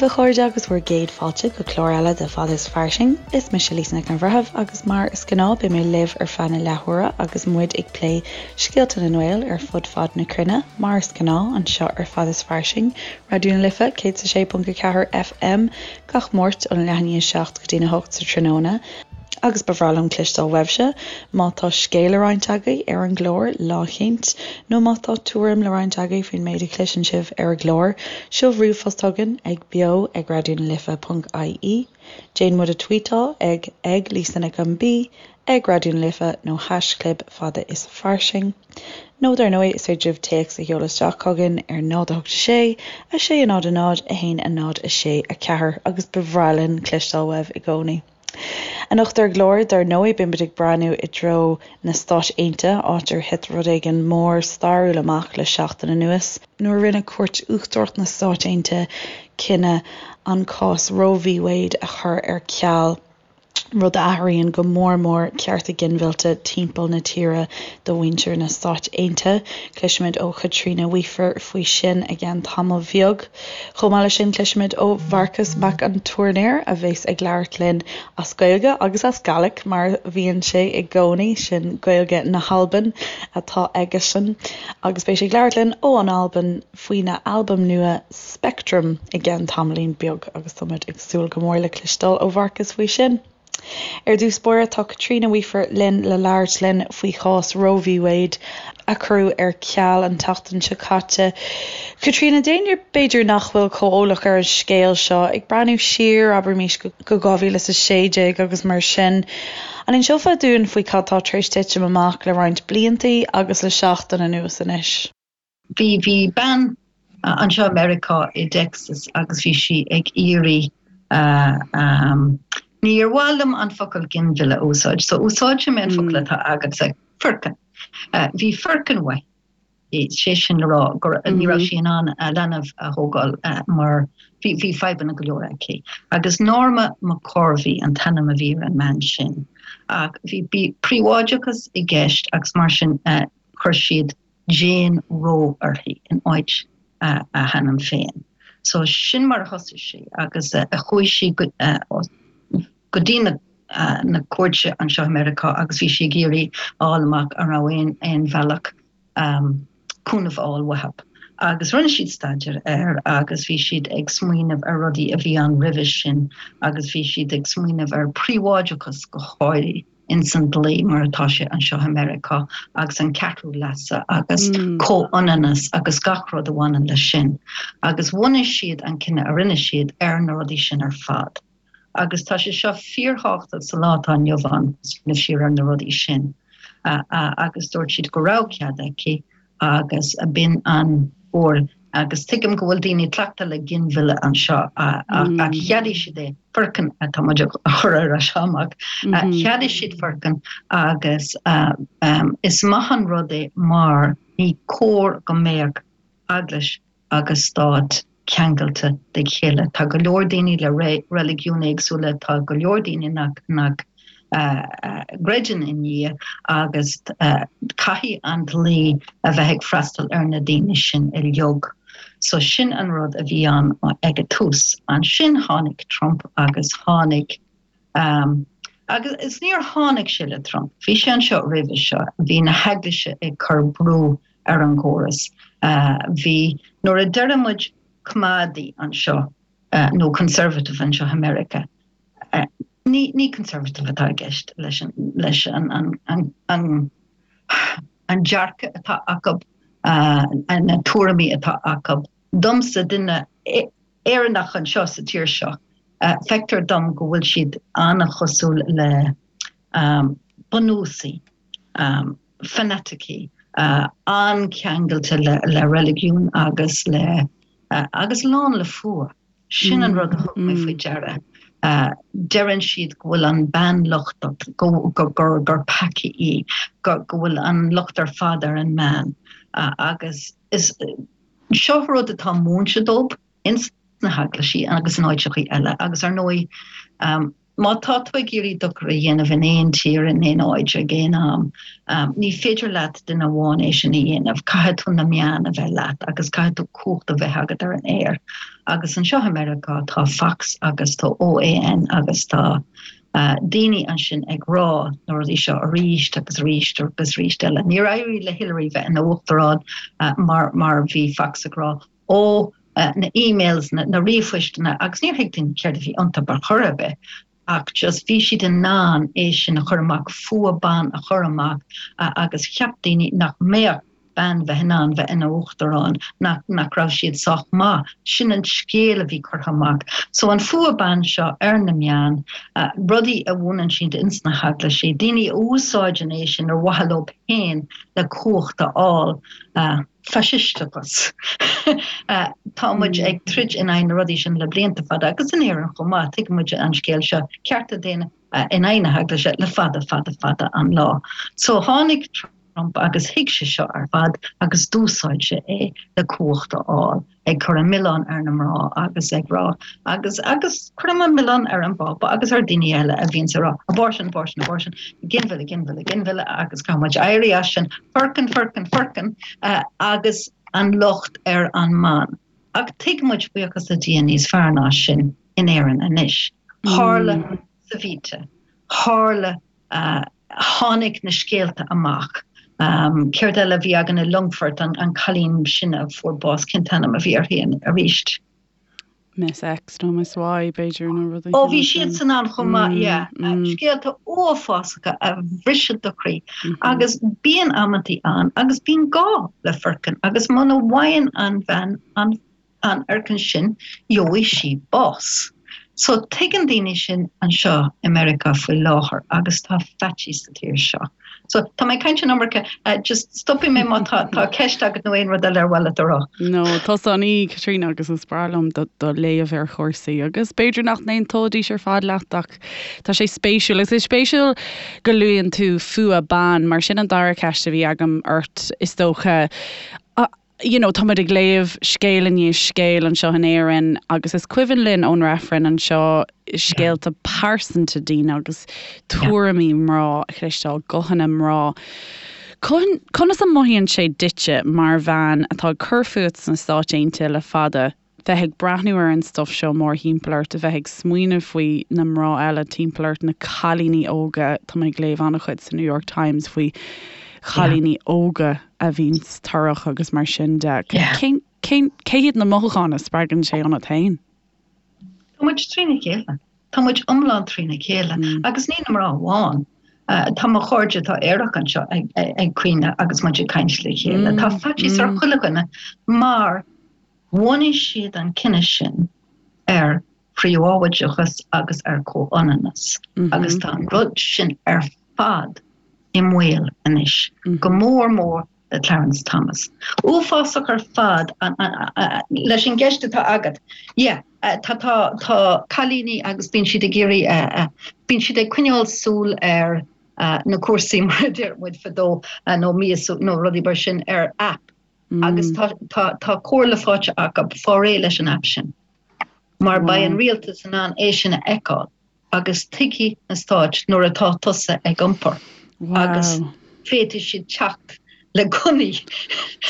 daoibh a chairde agus bhur gcéad fáilte go clár eile de Fada is Fairsing. Is mise Lisa Nic an Bhreithimh agus mar is gnáth beidh mé libh ar feadh na leathuaire agus muid ag plé scéalta na nGael ar fud fad na cruinne, mar is gnáth anseo ar Fada is Fairsing, Raidió na Life 106.4 FM gach Máirt óna leath i ndiaidh 7 go dtí'n 8 sa tráthnóna. Agus ba bhreá liom cloisteáil uaibhse má tá scéal le roinnt agaibh ar an gclár lá eicínt, nó má tá tuairim le roinnt agaibh faoin méid a chloiseann sibh ar an gclár, seol ríomhphost chugainn ag beo ag raidionalife ponc ie, déan muid a tvuíteáil ag ag Lisa Nic an B, ag Raidió na Life nó haischlib fada is fairsing. Nó dar ndóigh is féidir libh téacs a sheoladh isteach chugainn ar 0 8 6 6 0 0 1 0 6 4 agus ba bhreá linn cloisteáil uaibh i gcónaí. Anocht ar an gclár, dar ndóigh, beidh muid ag breathnú i dtreo na Stáit Aontaithe, áit ar thit rud éigin mór stairiúil amach le seachtain anuas, nuair a rinne Cúirt Uachtarach na Stáit Aontaithe cinneadh an cás Roe v Wade a chur ar ceal. rud a athraíonn go mór mór cearta ginmhillte timpeall na tíre do mhuintir na Stáit Aontaithe. Cloisfimid ó Chaitríona Weafer faoi sin i gceann tamaill bheag. Chomh maith leis sin cloisfimid ó Mharcas Mac an Tuairneir a bheas ag labhairt linn as Gaeilge agus as Gàidhlig mar a bhíonn sé i gcónaí, sin Gaeilge na hAlban atá aigesean, agus beidh sé ag labhairt linn ó an Albain faoina albam nua Spectrum i gceann tamaillín beag agus tá muid ag súil go mór le cloisteáil ó Mharcas faoi sin. Ar dtús báire tá Caitríona Weafer linn le labhairt linn faoi chás Roe v Wade a cuireadh ar ceal an tseachtain seo caite. Caitríona, d'éinne b'fhéidir nach bhfuil chomh eolach ar an scéal seo, ag breathnú siar, abraimis, go 2016 agus mar sin, an inseofá dúinn faoi cad tá tar éis titim amach le roinnt bliantaí agus le seachtain anuas anois? Bhí, bhí bean anseo i Meiriceá i dTexas agus bhí sí ag iarraidh níor mhaith liom an focal ginmhilleadh a úsáid, so úsáidfidh mé an focal atá agatsa, foirceann. Bhí foirceann uaithi, sé sin le rá go ní raibh sí in ann a leanbh a thógáil mar bhí, bhí fadhbanna go leor aici. Agus Norma McCorvey an t-ainm a bhí ar an mbean sin. Ach bhí, bhí príobháideachas i gceist agus mar sin chuir siad Jane Roe uirthi in áit a hainm féin. So sin mar a thosaigh sé agus chuaigh sí go dtí na cúirte anseo i Meiriceá agus bhí sí ag iarraidh a fháil amach an raibh aon aon bhealach cúnamh a fháil uathu. Agus rinne siad staidéar air agus bhí siad ag smaoineamh ar rudaí a bhí ann roimhe sin agus bhí siad ag smaoineamh ar príobháideachas go háirithe. ins an dlí mar atá sé anseo i Meiriceá agus an ceathrú leasa agus comhionannas agus gach rud a bhaineann leis sin. Agus bhunaigh siad an cinneadh a rinne siad ar na rudaí sin ar fad. Agus tá sé seo fíorthábhachtach sa lá atá inniu ann, smaoineamh siar ar na rudaí sin. Agus dúirt siad go raibh cead aici agus b'in an uair agus tuigim go bhfuil daoine cleachta le ginmhilleadh anseo ach cheadaigh siad é, foirceann atá muid a chur ar ais amach, cheadaigh siad foirceann agus is maith an rud é mar ní cóir go mbeadh eaglais agus stát ceangailte de chéile. Tá go leor daoine le reiligiúin éagsúla, tá go leor daoine nach nach gcreideann i nDia agus caithfidh an dlí a bheith ag freastal ar na daoine sin uilig. So sin an rud a bhí ann ag an tús. Ansin tháinig Trump agus tháinig agus is níor tháinig sé le Trump, bhí sé anseo roimhe seo, bhí na heaglaise ag cur brú ar an gcóras. Bhí, nuair a deireann muid coimeádaí anseo nó conservative anseo i Meiriceá, ní, ní conservative atá i gceist leis an, leis an, an, an, an, an dearcadh atá acu, na tuairimí atá acu. Domsa, duine Éireannach anseo sa tír seo, feictear dom go bhfuil siad an-chosúil le bunúsaigh. fanaticigh, an-cheangailte le reiligiún agus le agus lán le fuath. Sin an rud a thug mé faoi deara. Deireann siad go bhfuil an bean lochtach, go gur gur peacaí í, go go bhfuil an locht ar fad ar an mbean. Agus is seo rud atá múinte dóibh ins na heaglaisí agus in áiteachaí eile agus ar ndóigh. Má tá tú ag iarraidh dochar a dhéanamh in aon tír, in aon áit, ag aon am, ní féidir leat duine amháin é sin a dhéanamh. Caithfidh tú na meáin a bheith leat agus caithfidh tú cumhacht a bheith agat ar an aer. Agus anseo i Meiriceá tá Fox agus tá OAN agus tá daoine ansin ag rá na rudaí seo arís agus arís agus arís eile. Níor éirigh le Hillary bheith ina uachtarán mar mar bhí Fox ag rá ó na emails, na ríomhphoisteanna agus níor thuig daoine céard a bhí iontu ar chor ar bith ach just bhí siad in ann é sin a chur amach, fuath ban a chur amach agus cheap daoine nach mbeadh bean bheith in ann bheith ina uachtarán, nach nach raibh siad sách maith. Sin an scéal a bhí curtha amach. So an fuath ban seo ar na meáin, rudaí a mhúineann siad ins na heaglaisí, daoine a úsáideann é sin ar mhaithe leo féin le cumhacht a fháil. Faisisteachas. Tá muid ag troid in aghaidh na rudaí sin le blianta fada agus in Éirinn chomh maith, tuigeann muid an scéal seo, cearta daonna in aghaidh na heaglaise le fada fada fada an lá. So tháinig Trump agus thuig sé seo ar fad agus d'úsáid sé é le cumhacht a fháil. ag cur an milleán ar na mná agus ag rá agus agus cuirim an milleán ar an bPápa agus ar daoine eile a bhíonns ag rá abortion, abortion, abortion, ginmhilleadh, ginmhilleadh, ginmhilleadh agus caithfidh muid éirí as sin, foirceann, foirceann, foirceann agus an locht ar an mbean. Ach tuigeann muid buíochas le Dia níos fearr ná sin in Éirinn anois. Tharla Savita, tharla Tháinig na scéalta amach. Céard eile a bhí againn i Longfort, an cailín sin a fuair bás, cén t-ainm a bhí uirthi arís? Miss X nó Miss Y, b'fhéidir, nó rud éigin. Ó, bhí siadsan ann chomh maith, yeah. Scéalta uafásacha a bhriseann do chroí. Agus bíonn amantaí ann agus bíonn gá le foirceann agus muna bhfaigheann an bhean an an fhoirceann sin, gheobhaidh sí bás. So tuigeann daoine sin anseo i Meiriceá faoi láthair agus tá faitíos sa tír seo. So tá mé ag caint an iomarca, just stopfaidh mé má tá tá ceist agat nó aon rud eile ar mhaith leat a rá. No, tusa an aoi, Caitríona, agus is breá liom do do léamh ar chúrsaí agus b'fhéidir nach n-aontóidís ar fad leat ach tá sé spéisiúil. Agus is spéisiúil go luann tú fuath ban mar sin an dara ceist a bhí agam ort is dócha. You know, tá muid ag léamh scéal i ndiaidh scéil anseo in Éirinn agus is cuimhin linn ón reifreann anseo scéalta pearsanta daoine agus tuairimí mná a chloisteáil, guthanna mná. Conas a mothaíonn sé duitse mar bhean atá ag cur fút sna Stáit Aontaithe le fada, bheith ag breathnú ar an stuif seo mórthimpeall ort, a bheith ag smaoineamh faoi na mná eile timpeall ort, na cailíní óga, tá mé ag léamh an-chuid sa New York Times faoi chailíní óga a bhíonns torrach agus mar sin de. Cén, cén, cé hiad na mothúcháin a spreagann sé ionat féin? Tá muid trína chéile. Tá muid iomlán trína chéile. Agus ní na mná amháin. Tá mo chairde atá aerach anseo ag, ag caoineadh agus muid ag caint le chéile. Tá faitíos ar chuile dhuine mar Bhunaigh siad an cine sin ar phríobháideachas agus ar chomhionannas agus tá an rud sin ar fad i mbaol anois, go mór mór le Clarence Thomas. Uafásach ar fad leis an gceist atá agat. Yeah, tá tá tá cailíní agus bíonn siad ag iarraidh bíonn siad ag coinneáil súil ar na cúrsaí mar a deir muid fadó nó míosú nó rudaí mar sin ar app Agus tá tá tá comhairle faighte acu fáil réidh leis an aip sin. Mar beidh an rialtas in ann é sin a fheiceáil agus tuigfidh na stáit nuair atá tusa ag iompar agus féadfaidh siad teacht le gunnaí.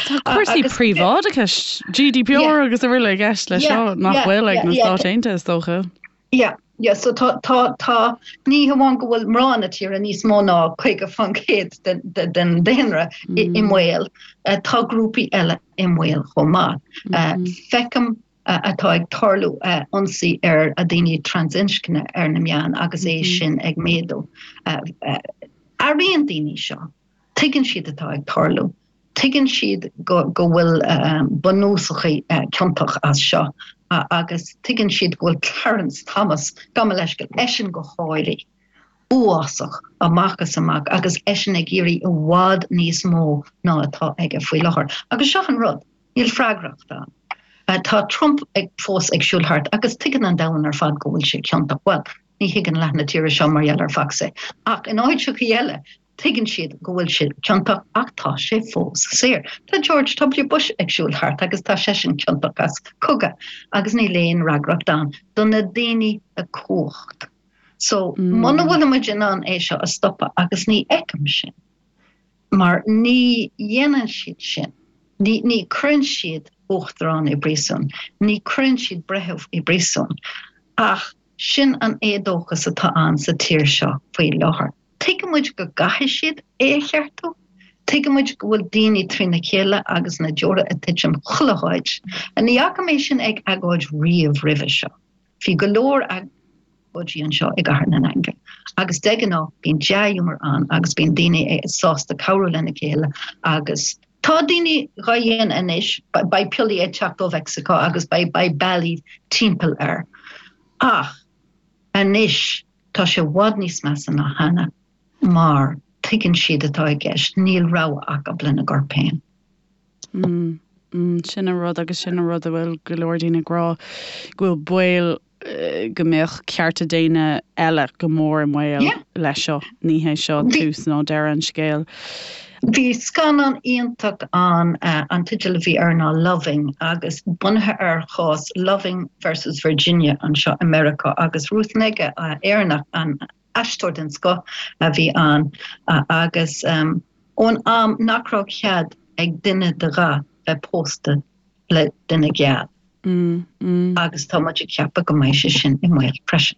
Tá cúrsaí príobháideachais, GDPR agus araile i gceist leis seo nach bhfuil ag na Stáit Aontaithe is dócha. Yeah, yeah, so tá, tá, tá, ní hamháin go bhfuil mná na tíre níos mó ná 50% den, den, den daonra i, i mbaol, tá grúpaí eile i mbaol chomh maith. Feicim atá ag tarlú ionsaí ar daoine trasinscne ar na meáin agus é sin ag méadú. Airíonn daoine seo. Tuigeann siad atá ag tarlú. Tuigeann siad go go bhfuil bunúsachaí ciontach as seo agus tuigeann siad go bhfuil Clarence Thomas, gabh mo leithscéal, eisean go háirithe, uafásach amach is amach agus eisean ag iarraidh i bhfad níos mó ná atá aige faoi láthair. Agus seo an rud, níl freagracht ann. Tá Trump ag fós ag siúl thart agus tuigeann an domhan ar fad go bhfuil sé ciontach. Bhuel, ní thuigeann leath na tíre seo mar gheall ar Fox é. Ach in áiteachaí eile, Tuigeann siad go bhfuil sé ciontach ach tá sé fós saor. Tá George W Bush ag siúl thart agus tá seisean ciontach as cogadh agus níl aon fhreagracht ann do na daoine le cumhacht. So, muna bhfuil muid in ann é seo a stopadh, agus ní fheicim sin, mar ní dhéanann siad sin, ní, ní cuireann siad uachtarán i bpríosún, ní cuireann siad breitheamh i bpríosún, ach sin an éadóchas atá ann sa tír seo faoi láthair. Tuigeann muid go gcaithfidh siad é a cheartú. Tuigeann muid go bhfuil daoine trína chéile agus na deora ag titim chuile háit. Ní fhaca mé sin ag agóid riamh roimhe seo. Bhí go leor agóidí anseo i gCathair na nAingeal agus de ghnáth bíonn dea-ghiúmar ann agus bíonn daoine sásta cabhrú lena chéile agus tá daoine dhá dhéanamh anois, beidh piollaí ag teacht ó Mheicsiceo agus beidh beidh bealaí timpeall air. Ach anois tá sé i bhfad níos measa ná cheana mar tuigeann siad atá i gceist, níl rogha acu lena gcorp féin. Mm, sin an rud agus sin an rud a bhfuil go leor daoine ag rá, go bhfuil baol go mbeadh cearta daonna eile go mór i mbaol leis seo. Ní hé seo tús ná deireadh an scéil. Bhí scannán iontach ann, an teideal a bhí air ná Loving agus bunaithe ar chás Loving versus Virginia anseo i Meiriceá agus Ruth Negga, Éireannach, an aisteoir den scoth a bhí ann agus ón am nach raibh cead ag duine de dhath bheith pósta le duine geal agus tá muid ag ceapadh go mbeidh sé sin i mbaol freisin.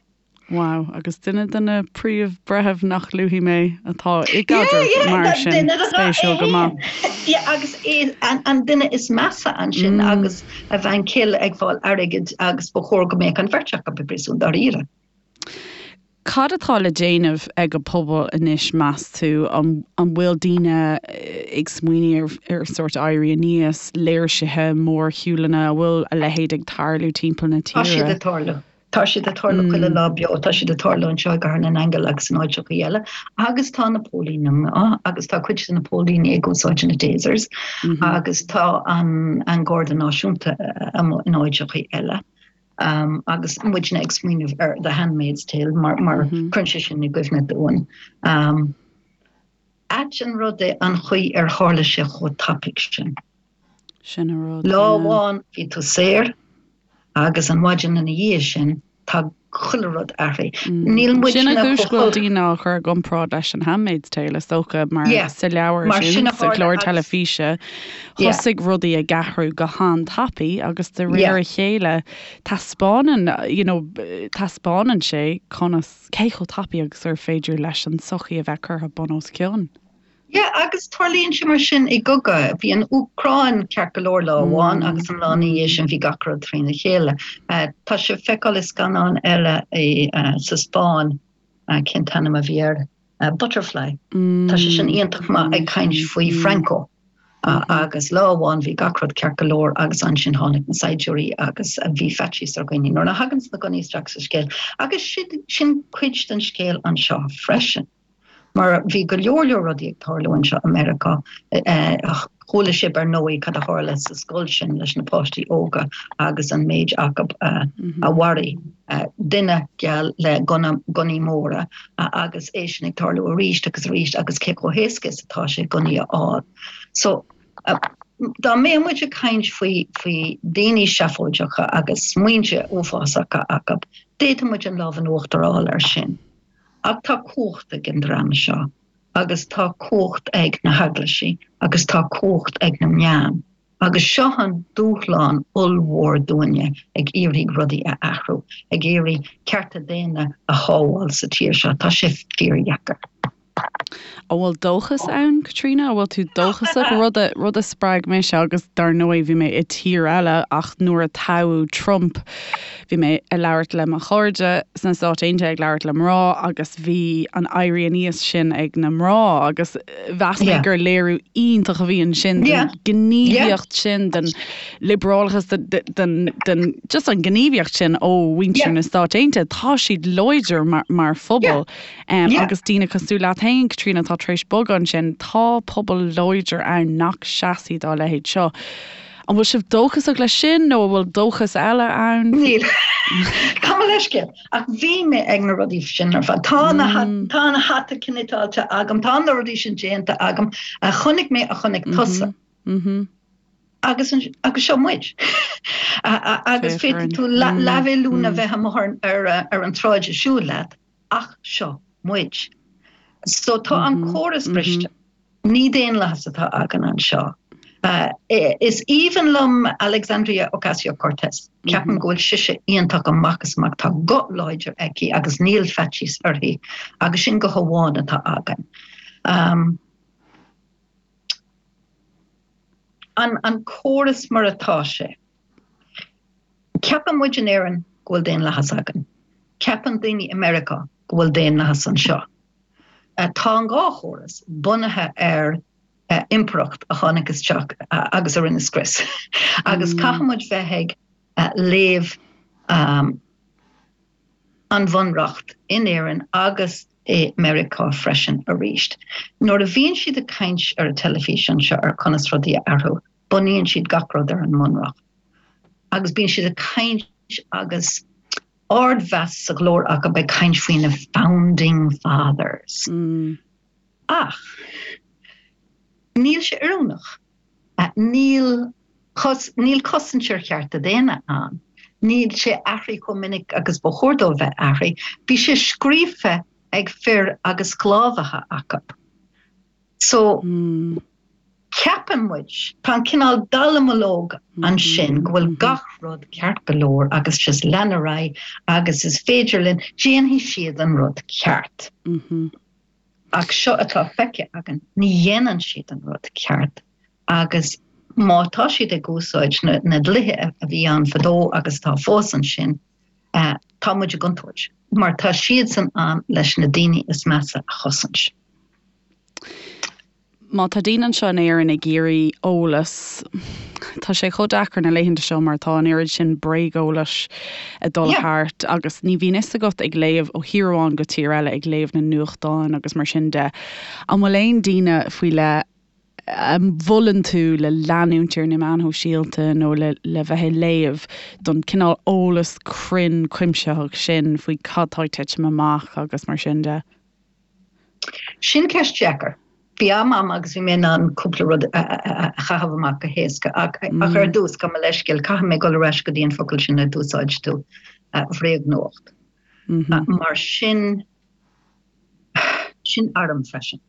Wow, agus duine de na príomh-bhreithimh nach luafaidh mé atá i gcaidreamh mar sin, spéisiúil go maith. Yeah, agus é an duine is measa ansin agus a bhean chéile ag fáil airgid agus ba chóir go mbeadh an bheirt acu i bpríosún dáiríre. Cad atá le déanamh ag an pobal anois, meas tú? An bhfuil daoine ag smaoineamh ar sórt éirí aníos, léirsithe, mórshiúlanna, an bhfuil a leithéid ag tarlú timpeall na tíre? Tá siad ag tarlú. Tá siad ag tarlú chuile lá beo. Tá siad ag tarlú anseo i gCathair na nAingeal agus in áiteachaí eile. Agus tá na póilíní amuigh agus tá cuid de na póilíní ag úsáid na tasers agus tá an Garda Náisiúnta amuigh in áiteachaí eile. Agus muidne ag smaoineamh ar The Handmaid's Tale mar mar cuireann sé sin i gcuimhne dúinn. Ait an rud é an chaoi ar tharla sé chomh tapaidh sin. Sin an rud. Lá amháin bhí tú saor agus an mhaidin ina dhiaidh sin tá chuile rud athraithe. Níl muidne Sin an chúis go bhfuil daoine á chur i gcomparáid leis an Handmaid's Tale is dócha mar sa leabhar sin, sa chlár teilifíse, thosaigh rudaí ag athrú go han-tapaidh agus de réir a chéile taispeánann, you know, taispeánann sé conas, cé chomh tapaidh agus gur féidir leis an tsochaí a bheith curtha bun os cionn. Yeah, agus tarlaíonn sé mar sin i gcogadh. Bhí an Úcráin ceart go leor lá amháin agus an lá ina dhiaidh sin bhí gach rud trína chéile. Tá sé le feiceáil i scannán eile sa Spáinn, cén t-ainm a bhí air? Butterfly. Tá sé sin iontach maith ag caint faoi Franco. Agus lá amháin bhí gach rud ceart go leor agus ansin tháinig na saighdiúirí agus bhí faitíos ar dhaoine nuair a thaganns na gunnaí isteach sa scéal. Agus sin cuid den scéal anseo freisin. Mar bhí go leor leor rudaí ag tarlú anseo i Meiriceá. Chuala sibh ar ndóigh cad a tharla sa scoil sin leis na páistí óga agus an méid acu a mharaigh duine geal le gunna, gunnaí móra agus é sin ag tarlú arís agus arís agus cé chomh héasca is atá sé gunnaí a fháil. So dá mbeadh muid ag caint faoi faoi daoine seafóideacha agus smaointe uafásacha acu, d'fhéadfadh muid an lámh in uachtar a fháil air sin. Ach tá cumhacht ag an dream seo, agus tá cumhacht ag na heaglaisí, agus tá cumhacht ag na meáin, agus seo an dúshlán ollmhór dúinne ag iarraidh rudaí a athrú, ag iarraidh cearta daonna a shábháil sa tír seo. Tá sé fíordheacair. An bhfuil dóchas ann, Caitríona? An bhfuil tú dóchasach? Rud a, rud a spreag mise agus dar ndóigh bhí mé i tír eile ach nuair a toghadh Trump bhí mé ag labhairt le mo chairde sna Stáit Aontaithe, ag labhairt le mná agus bhí an éirí aníos sin ag na mná agus mheas mé gur léiriú iontach a bhí ansin den ghníomhaíocht sin, den liobrálachas, den, den, just an ghníomhaíocht sin ó mhuintir na Stáit Aontaithe. Tá siad láidir mar, mar phobal. Agus daoine cosúil leat féin, Caitríona, atá tar éis bogadh ansin, tá pobal láidir ann nach seasfaidh dá leithéid seo. An bhfuil sibh dóchasach leis sin nó an bhfuil dóchas eile ann? Níl. Gabh mo leithscéal. Ach bhí mé ag na rudaí sin ar fad. Tá na tá an hata cniotáilte agam, tá na rudaí sin déanta agam a chonaic mé a chonaic tusa. Agus agus seo muid. Agus féadfaidh tú leathmhilliún a bheith amuigh ar an tsráid ag siúl leat. Ach seo muid. So tá an córas briste. Ní daonlathas atá againn anseo. Is aoibhinn liom Alexandria Ocasio-Cortez. Ceapaim go bhfuil sise iontach amach is amach. Tá guth láidir aici agus níl faitíos uirthi agus sin guth amháin atá againn. An córas mar atá sé. Ceapann muid in Éirinn go bhfuil daonlathas againn. Ceapann daoine i Meiriceá go bhfuil daonlathas anseo. Tá an dhá chóras bunaithe ar impireacht a tháinig isteach agus a rinne scrios. Agus caithfidh muid bheith ag léamh an Bhunreacht in Éirinn agus i Meiriceá freisin arís. Nuair a bhíonn siad ag caint ar an teilifís anseo ar conas rudaí a athrú, bunaíonn siad gach rud ar an mBunreacht. Agus bíonn siad ag caint agus ardmheas sa ghlór acu ag caint faoi na founding fathers. Ach níl sé oiriúnach. Níl níl cosaint ar chearta daonna ann. Níl sé athraithe chomh minic agus ba chóir dó bheith athraithe. Bhí sé scríofa ag fir agus sclábhaithe acu. So, ceapann muid, tá an cineál dallamullóg ansin go bhfuil gach rud ceart go leor agus just lean ar aghaidh agus is féidir linn, déanfaidh siad an rud ceart. Ach seo atá feicthe againn, ní dhéanann siad an rud ceart agus má tá siad ag úsáid na dlíthe a bhí ann fadó agus atá fós ansin, tá muid i gcontúirt mar tá siadsan ann leis na daoine is measa a chosaint. Má tá daoine anseo in Éirinn ag iarraidh eolas, tá sé chomh deacair na laethanta seo mar tá an oiread sin bréageolais ag dul thart agus ní bhíonn fhios agat ag léamh ó thír amháin go tír eile, ag léamh na nuachtáin agus mar sin de. An bhfuil aon daoine faoi leith a mholann tú le leanúint ar na meáin shóisialta nó le le bheith ag léamh don cineál eolas cruinn cuimsitheach sin faoi cad tá ag titim amach agus mar sin de? Sin ceist dheacair. Bhí am a'm agus bhí mé in ann cúpla rud a chaitheamh amach go héasca ach ach ar dtús, gabh mo leithscéal, caithfidh mé dul ar ais go dtí an focal sin a d'úsáid tú, bhréagnuacht. Mar sin, sin arm freisin.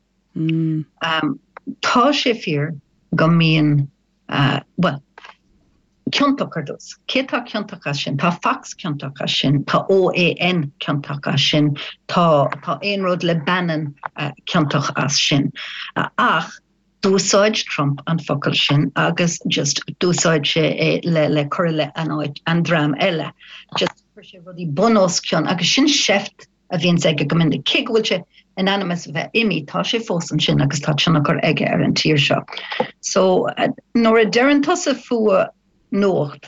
Tá sé fíor go mbíonn Bhuel, ciontach ar dtús. Cé tá ciontach as sin? Tá Fox ciontach as sin, tá OAN ciontach as sin, tá tá aon rud le Bannon ciontach as sin. Ach d'úsáid Trump an focal sin agus just d'úsáid sé é le le cur i leith an áit an dream eile. Just chuir sé rudaí bun os cionn agus sin seift a bhíonns aige go minic. Cé go bhfuil sé in ainm is a bheith imithe, tá sé fós ansin agus tá tionchar aige ar an tír seo. So, nuair a deireann tusa fuath nuacht,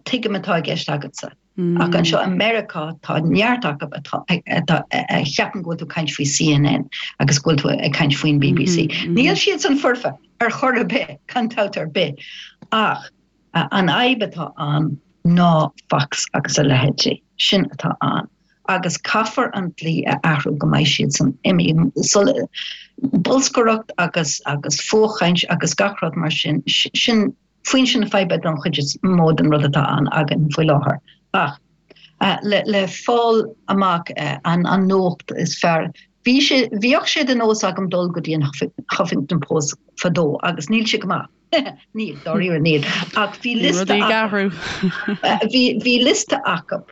tuigim atá i gceist agatsa. Ach anseo i Meiriceá tá neart acu atá atá a cheapann go bhfuil tú ag caint faoi CNN agus go bhfuil tú ag caint faoin BBC. Níl siadsan foirfe ar chor ar bith, gan dabht ar bith. Ach An fhadhb atá ann ná Fox agus a leithéidí. Sin atá ann. Agus caithfear an dlí a athrú go mbeidh siadsan imithe. Bolscaireacht agus agus fuathchaint agus gach rud mar sin, sin foinse na faidhbe don chuid is mó den rud atá ann againn faoi láthair. Ach le le fáil amach an an nuacht is fearr, bhí sé bhíodh sé de nós agam dul go dtí an Huffington Post fadó agus níl sé go maith. Níl, dáiríre níl. Ach bhí liosta acu. Bhí liosta acu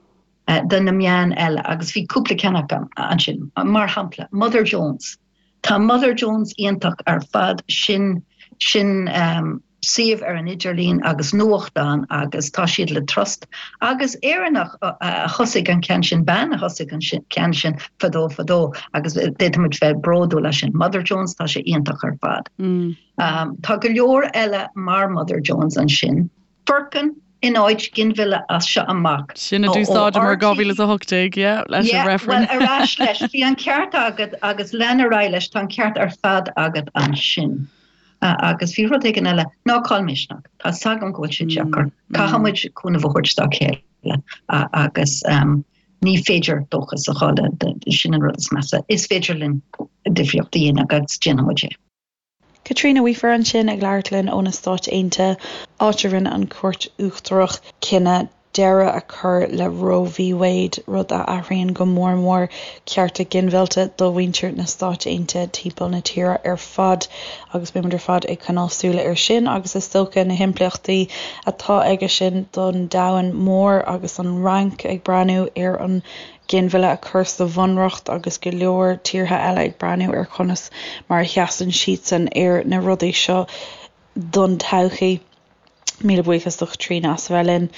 de na meáin eile agus bhí cúpla ceann acu ansin. Mar shampla, Mother Jones. Tá Mother Jones iontach ar fad, sin sin suíomh ar an idirlíon agus nuachtán agus tá siad le trust. Agus Éireannach a thosaigh an ceann sin, bean a thosaigh an ceann sin fadó fadó agus d'fhéadfadh muid bheith bródúil as sin. Mother Jones, tá sé iontach ar fad. Tá go leor eile mar Mother Jones ansin. Foirceann in áit ginmhilleadh as seo amach. Sin a d'úsáideamar 2018, yeah, leis an reifreann. Bhuel, ar ais leis. Bhí an ceart agat agus lean ar aghaidh leis, tá an ceart ar fad agat ansin. Agus bhí rud éigin eile, ná caill misneach. Tá 's agam go bhfuil sé deacair. Caithfidh muid cúnamh a thabhairt dá chéile agus ní féidir dóchas a chailleadh, sin an rud is measa. Is féidir linn difríocht a dhéanamh agus déanfaidh muid é. Caitríona Weaver ansin ag labhairt linn ó na Stáit Aontaithe, áit a rinne an Chúirt Uachtarach cinneadh. deireadh a chur le Roe v Wade, rud a athraíonn go mór mór cearta ginmhillte do mhuintir na Stáit Aontaithe timpeall na tíre ar fad agus beidh muid ar fad ag coinneáil súile air sin agus is dócha na himpleachtaí atá aige sin don domhan mór agus an Fhrainc ag breathnú ar an ginmhilleadh a chur sa bhunreacht agus go leor tíortha eile ag breathnú ar conas mar a sheasann siadsan ar na rudaí seo don todhchaí. Míle buíochas do Chaitríona as a bheith linn.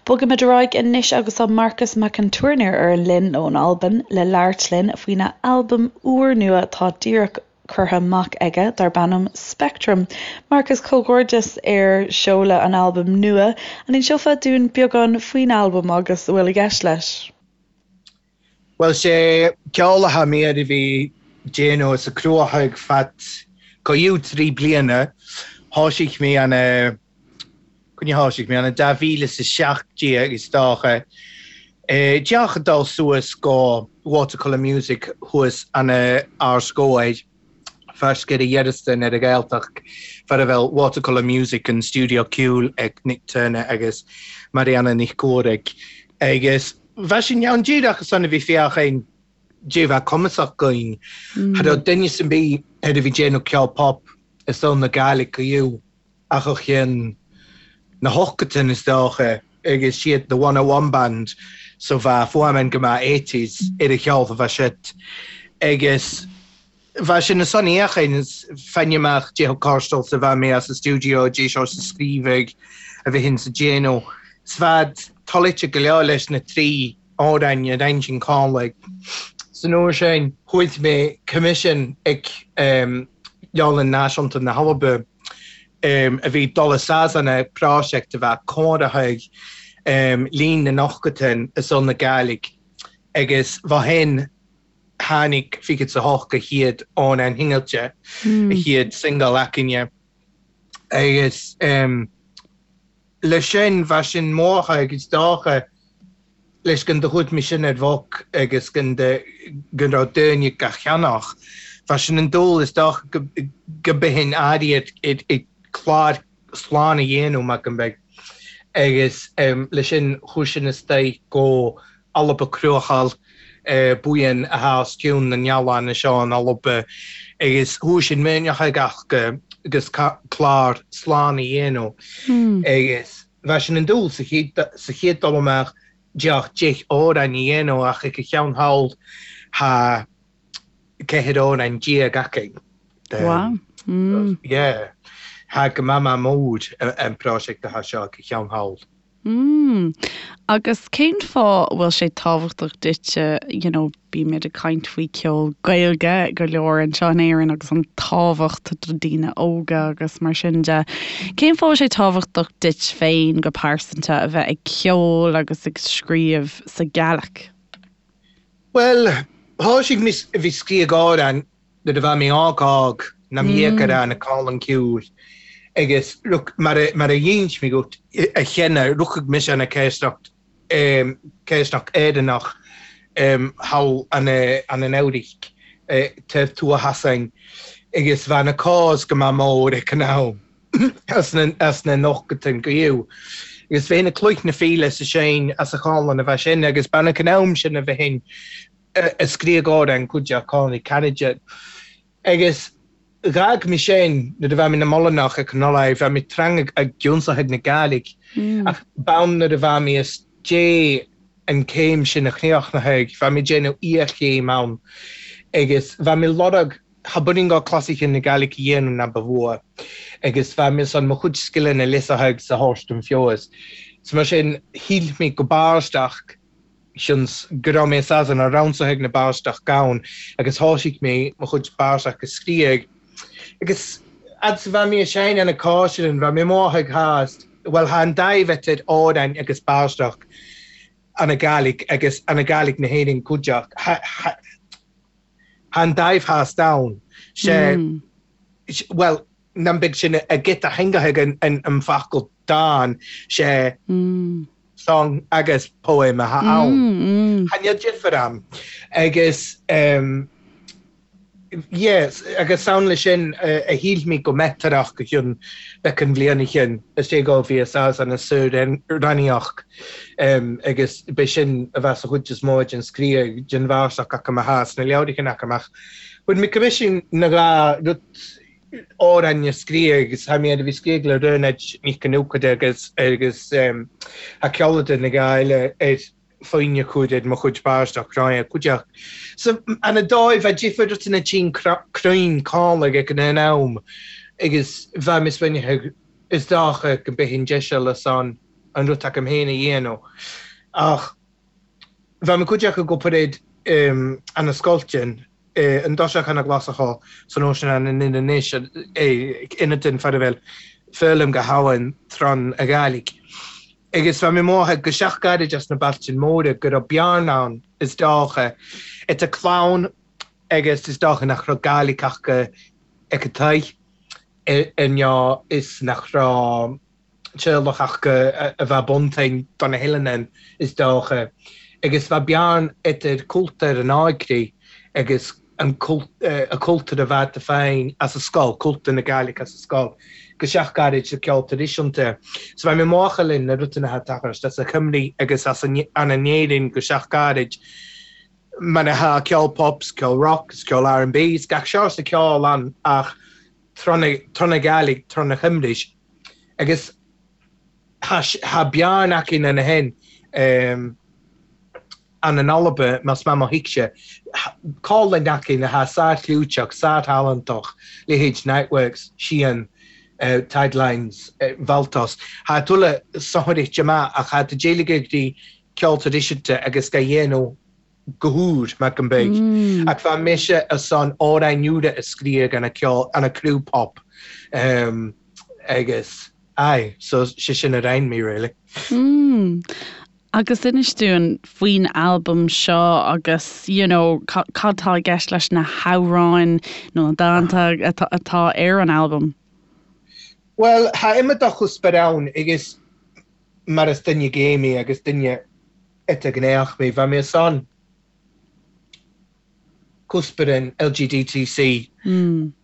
Bogaimid ar aghaidh anois agus tá Marcas Mac an Tuairneir ar an line ón Albain le labhairt linn faoina albam úrnua atá díreach curtha amach aige darb ainm Spectrum. Marcas, comhghairdeas ar seoladh an albaim nua. An inseofá dúinn beagán faoin albam agus a bhfuil i gceist leis? Bhuel, sé ceol atá mé a bhí déanamh is a cruthóidh fad go 3 bliana. Thoisigh mé an coinne thoisigh mé an 2017 is dócha. Díreach ag dul suas go Watercolour Music thuas an Ard Gobhair, Ferscair a Dhearastan ar an Ghaeltacht, far a bhfuil Watercolour Music an stiúideo ceoil ag Nick Turner agus Marianna Nic Cumhraigh. Agus bheadh sin ann díreach ansan a bhí féachaint dé bheith cumasach againn. Cha raibh duine ar bith ar a bhí déanamh ceol pop i saol na Gàidhlig go ach ó chionn na hochtain is dócha agus siad The 101 Band so bheadh fuaimeann go maith eighties ar a cheol a bheadh siad agus bheadh sin ansan fhéachaint is fáinne amach dé chomh sa bheadh mé as an stiúideo dé seo sa scríobhadh a bheinn sa déanamh 's bheadh toilite go leor leis na 3 amhráin a roinn sin Conlaigh. San uair sin chuaigh mé coimisiún ag Leabharlann Náisiúnta na hAlba a bhí dul i Sasana prosiect a bheadh comhairtheach líon na n-ochtain i saol na Gàidhlig agus bha shin tháinig 28 a chéad amhrán shingilte, a chéad singil againne agus leis sin bheadh sin mórtha agus dócha leis go do chuaigh mé sin ar bhoc agus go go raibh daoine ga cheannach. Bheadh sin an dúil is dócha go go mbeinn áirithe ag clár slán a dhéanamh mar go mbeidh agus leis sin chuaigh sin istoigh go Alba Cruachaill buíon atá os cionn na n-oileán seo in Alba agus chuaigh sin muineach ag ach agus clár slán a dhéanamh agus bheadh sin an dúil sa chéad sa chéad dul amach deoch 10 amhrán a dhéanamh ach ag a cheann thall thá 14 amhrán againn. Wow. Yeah. Thá go maith maith mór an prosiect atá seo ag a cheann thall. Mm. Agus cén fáth a bhfuil sé tábhachtach duitse, you know, bímid ag caint faoi ceol Gaeilge go leor anseo in Éirinn agus an tábhacht do daoine óga agus mar sin de. Cén fáth a bhfuil sé tábhachtach duit féin go pearsanta a bheith ag ceol agus ag scríobh sa Ghàidhlig? Bhuel, thoisigh mé a bhí scríobh amhrán Nuair a bheadh mé óg óg nam dhéag ar na cálann ciúil agus mar a dh'ins mé dhuit a cheana ruchadh mise ana céisteacht céisteacht Éireannach thall ana an Eabhraic taobh tuath asainn agus bheadh na cás go maith mór ag an am as na as na nochtain go fhiú agus bheinn ag cloich na fíle sa séin as a chálann a bheith sin agus b'ann ag an am sin a bheinn a scríobh amhrán cuid de Connie Kennedy agus dh'fhág mé sin nuair a bheadh mé na Molanach ag an Ollaigh, bheadh mé trang ag giúnsaithe na Gàidhlig ach b'ann nuair a bheadh mé is dé an céim sin a chríochnaithe, bheadh mé déanamh iarchéim ann agus bheadh mé lorg tha buinn go clasaiche na Gàidhlig a dhéanamh ná ba mhór agus bheadh mé san mo chuid scileanna liosaithe sa thabhairt don feabhas. So mar sin shíl mé go b'aisteach Seans go raibh mé Sasana ransaithe ag na báisteach gann agus thoisigh mé mo chuid báisteach a scríobh. Agus fhad 's a bheadh mé ag seinm ana cáisirean, bheadh mé amuigh ag thást, bhuel thá an daimh idir amhráin agus báisteach ana Gàidhlig agus ana Gàidhlig na hÉireann cuideachta. Thá an daimh thást ann. Sé, bhuel, nam beidh sin a giota theanga ag an focal dán, sé song agus poem atá ann. Tha níl difear ann. Agus. Yes, agus ann leis sin a shíl mé go metarach go cionn beacan bhliana shin is é go bhí a saghas ana saoránaíoch agus b'é sin a bheas a chuid is mó den scríobh den bhársacht acu a thá sna leabhrachain acu ach fuair mé coimisiún na dhá rud amhráin a scríobh agus thá mé a bhí scríobh le Raonaid Nic Con Fhiuchada agus agus thá ceoladar na dhá eile ar foighne chuid ar mo chuid báisteach cráine cuideachta. So, ana dóigh, bheadh difear duit ina tinn cruinn cánach ag an am agus bheadh mise bainithe is dócha go mbeidh an deis eile san an rud agam féin a dhéanamh. Ach bheadh mo chuid acu go paréad ana scoilteann an dtoiseach ana ghlasach san ocean ana nin anois ina den fear a bhfuil foghlaim go habhainn tron a Ghàidhlig. Agus bheadh mé mothaithe go seach-ghairid as na Bealtaine Móire go raibh bearna ann, is dócha, idir clann agus is dócha nach raibh Gàidhlig acu ag an toigh ar ndóigh is nach raibh teaghlach acu a bheadh buntain do na hoileáin, is dócha. Agus bheadh bearna idir cultúr an óigrí agus an cultúr a bheadh féin as an scoil, cultúr na Gàidhlig as an scoil, go seach-ghairid sa ceol traidisiúnta. So bheadh mé máchail na rudaí atá tagtha as a Chymru agus as an in Éirinn go seach-ghairid, mar atá ceol pop, ceol rock, ceol R&B, is gach seort de ceol ann ach tron na Gàidhlig, tron na Chymru. Agus thá bearna acu ina shin. An in Alba, más maith mo thuigse, cáil acu atá sár-chlúiteach, sár-thalentach, leithéid Niteworks, Sian, Tidelines, Valtos. Thá tuilleadh sonraithe amach ach thá d'éiligh ag dtí ceol traidisiúnta agus ga dhéanamh go húr, mar go mbeidh. Ach bheadh mise ar son amhráin úra a scríobh ana ceol, ana criú pop agus aye, so sé sin a roinn mé really. Agus inis dúinn faoin albam seo agus you know cad atá i gceist leis na hamhráin nó na dánta atá ar an albam. Bhuel, thá iomad de chuspoir ann agus mar is duine gay mé agus duine idirghnéach mé, bheadh mé ar son cuspoir an LGDTC a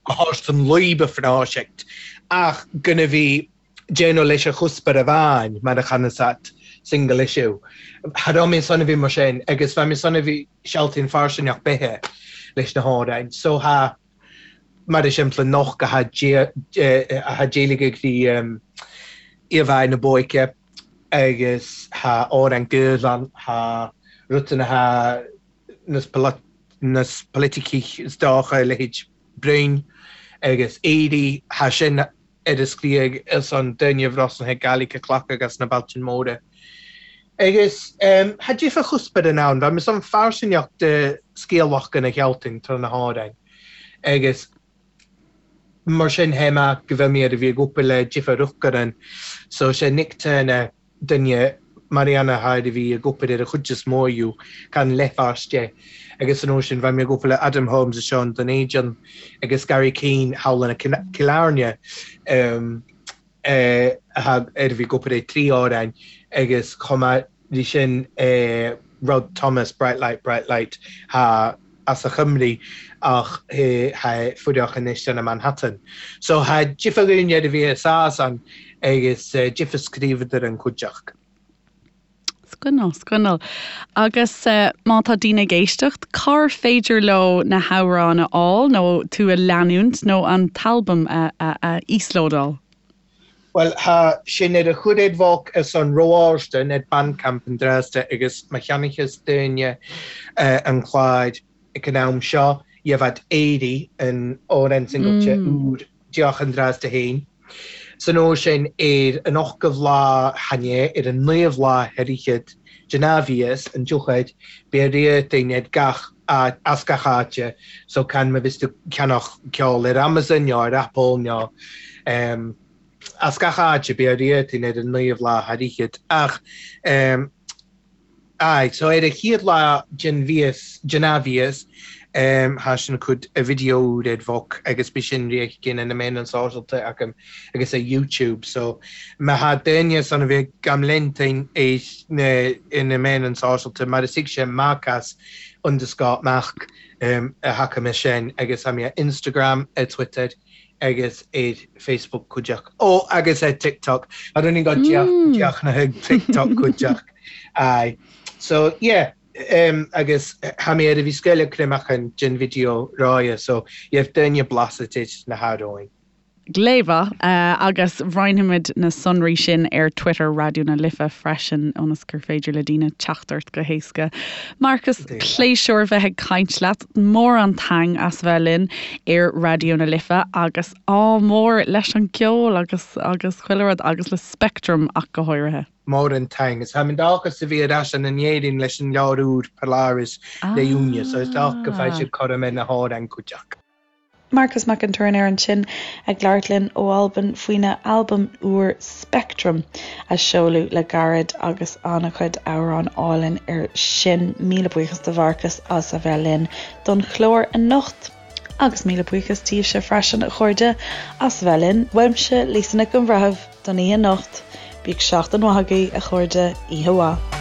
thabhairt don laoib a phroiseact ach gan a bhí déanamh leis an chuspoir amháin mar a chanasat single issue. Cha raibh mé san a bhí mar sin agus bheadh mé san a bhí sealtaíonn fairsingeach beithe leis na hamhráin. So thá mar is simple noch go thá d'éiligh ag bhí íomhá na bóice agus thá amhrán Gaeilge thá rutanna thá nas politicich is dócha leithéid Broin agus Éirí thá sin ar a scríobh ar son duine bhrosnaithe Gaelic a chlacadh as na Bealtaine Móire. Agus thá difear chuspoir in ann, bheadh mé san fairsingeach de scéalach gona Shealtainn tráth na hamhráin agus mar sin théim go bhfuil mé ar a bhí ag obair le difear Uachtaráin so sé Nick Turner duine Mariana Hyde a bhí ag obair ar a chuid is mó acu, can leithmhars de, agus san uair sin bheidh mé ag obair le Adam Holmes is Sean Dún Éideann agus Gary Keane thall in Cill Airne ar a bhí ag obair ar thrí amhráin agus chomh maith leis sin Rod Thomas, Bright Light, Bright Light, thá as a Chymru ach thá fuireach anois in Manhattan. So thá difear againn ar a bhí i Sasan agus difear scríobhadar an cuideachta. Scannal, scannal. Agus má tá daoine ag éisteacht, cár féidir leo na hamhráin a fháil nó tú a leanúint nó an t-albam a íoslódáil? Bhuel, thá sin ar a chuiréad bhóc ar son Róáirstein ar Bandcamp an Dresda agus má cheannaítheas daoine an clár ag an am seo, gheibhead Éirí an amhrán singailte úr deoch an Dresda féin. San uair sin ar an ochtmhadh lá chan ea, ar an naomhadh lá thar fhichead den athmhias, an dtiocfaid, beidh riartain ar gach áit, as gach áite, so can má bhios tú ceannach ceol ar Amazon nó ar Apple nó em as gach áite beidh riartain ar an naomhadh lá thar fhichead ach em aye so ar an chéad lá den mhias den athmhias. Tha sin cud a video úr ar bhoc agus bí sin riath gin na meáin sóisialta agam agus ar YouTube so má tha daoine san a bheith gam leantain ar na na meáin sóisialta mar is thig sé Marcas underscore Mac a thaca mé sin agus tha mi ar Instagram, ar Twitter agus ar Facebook cuideach. Ó agus ar TikTok. I don't think deach na thug TikTok cuideach. Aye. So yeah, agus tha mi ar a bhith sgoil creamachan den video ráidhe so gheibh daoine blasa tit na h-amhrain. Glé mhaith, agus roinnfimid na sonraí sin ar Twitter Raidió na Life freisin ionas gur féidir le daoine teacht ort go héasca. Marcas, pléisiúr bheith ag caint leat. Mór an taing as bheith linn ar Raidió na Life agus ádh mór leis an gceol agus agus chuile rud agus le Speictream ach go háirithe. Mór an taing. Is tha mi dòchas a bhith air ais ann an Éirinn leis an leabhar úr Polaris le Iúine so is dòcha go bhfaighidh sibh cothrom ar na hamhrain cuideachta. Marcas Mac an Tuairneir ansin ag labhairt linn ó Albain faoina albam úr Speictream a seoladh le gairid agus an-chuid amhrán álainn air sin. Míle buíochas do Mharcas as a bheith linn don chlár anocht. Agus míle buíochas daoibhse freisin, a chairde, as a bheith linn. Uaimse, Lisa Nic an Bhreithimh, don oíche anocht. Bíodh seachtain mhaith agaibh, a chairde. Oíche mhaith.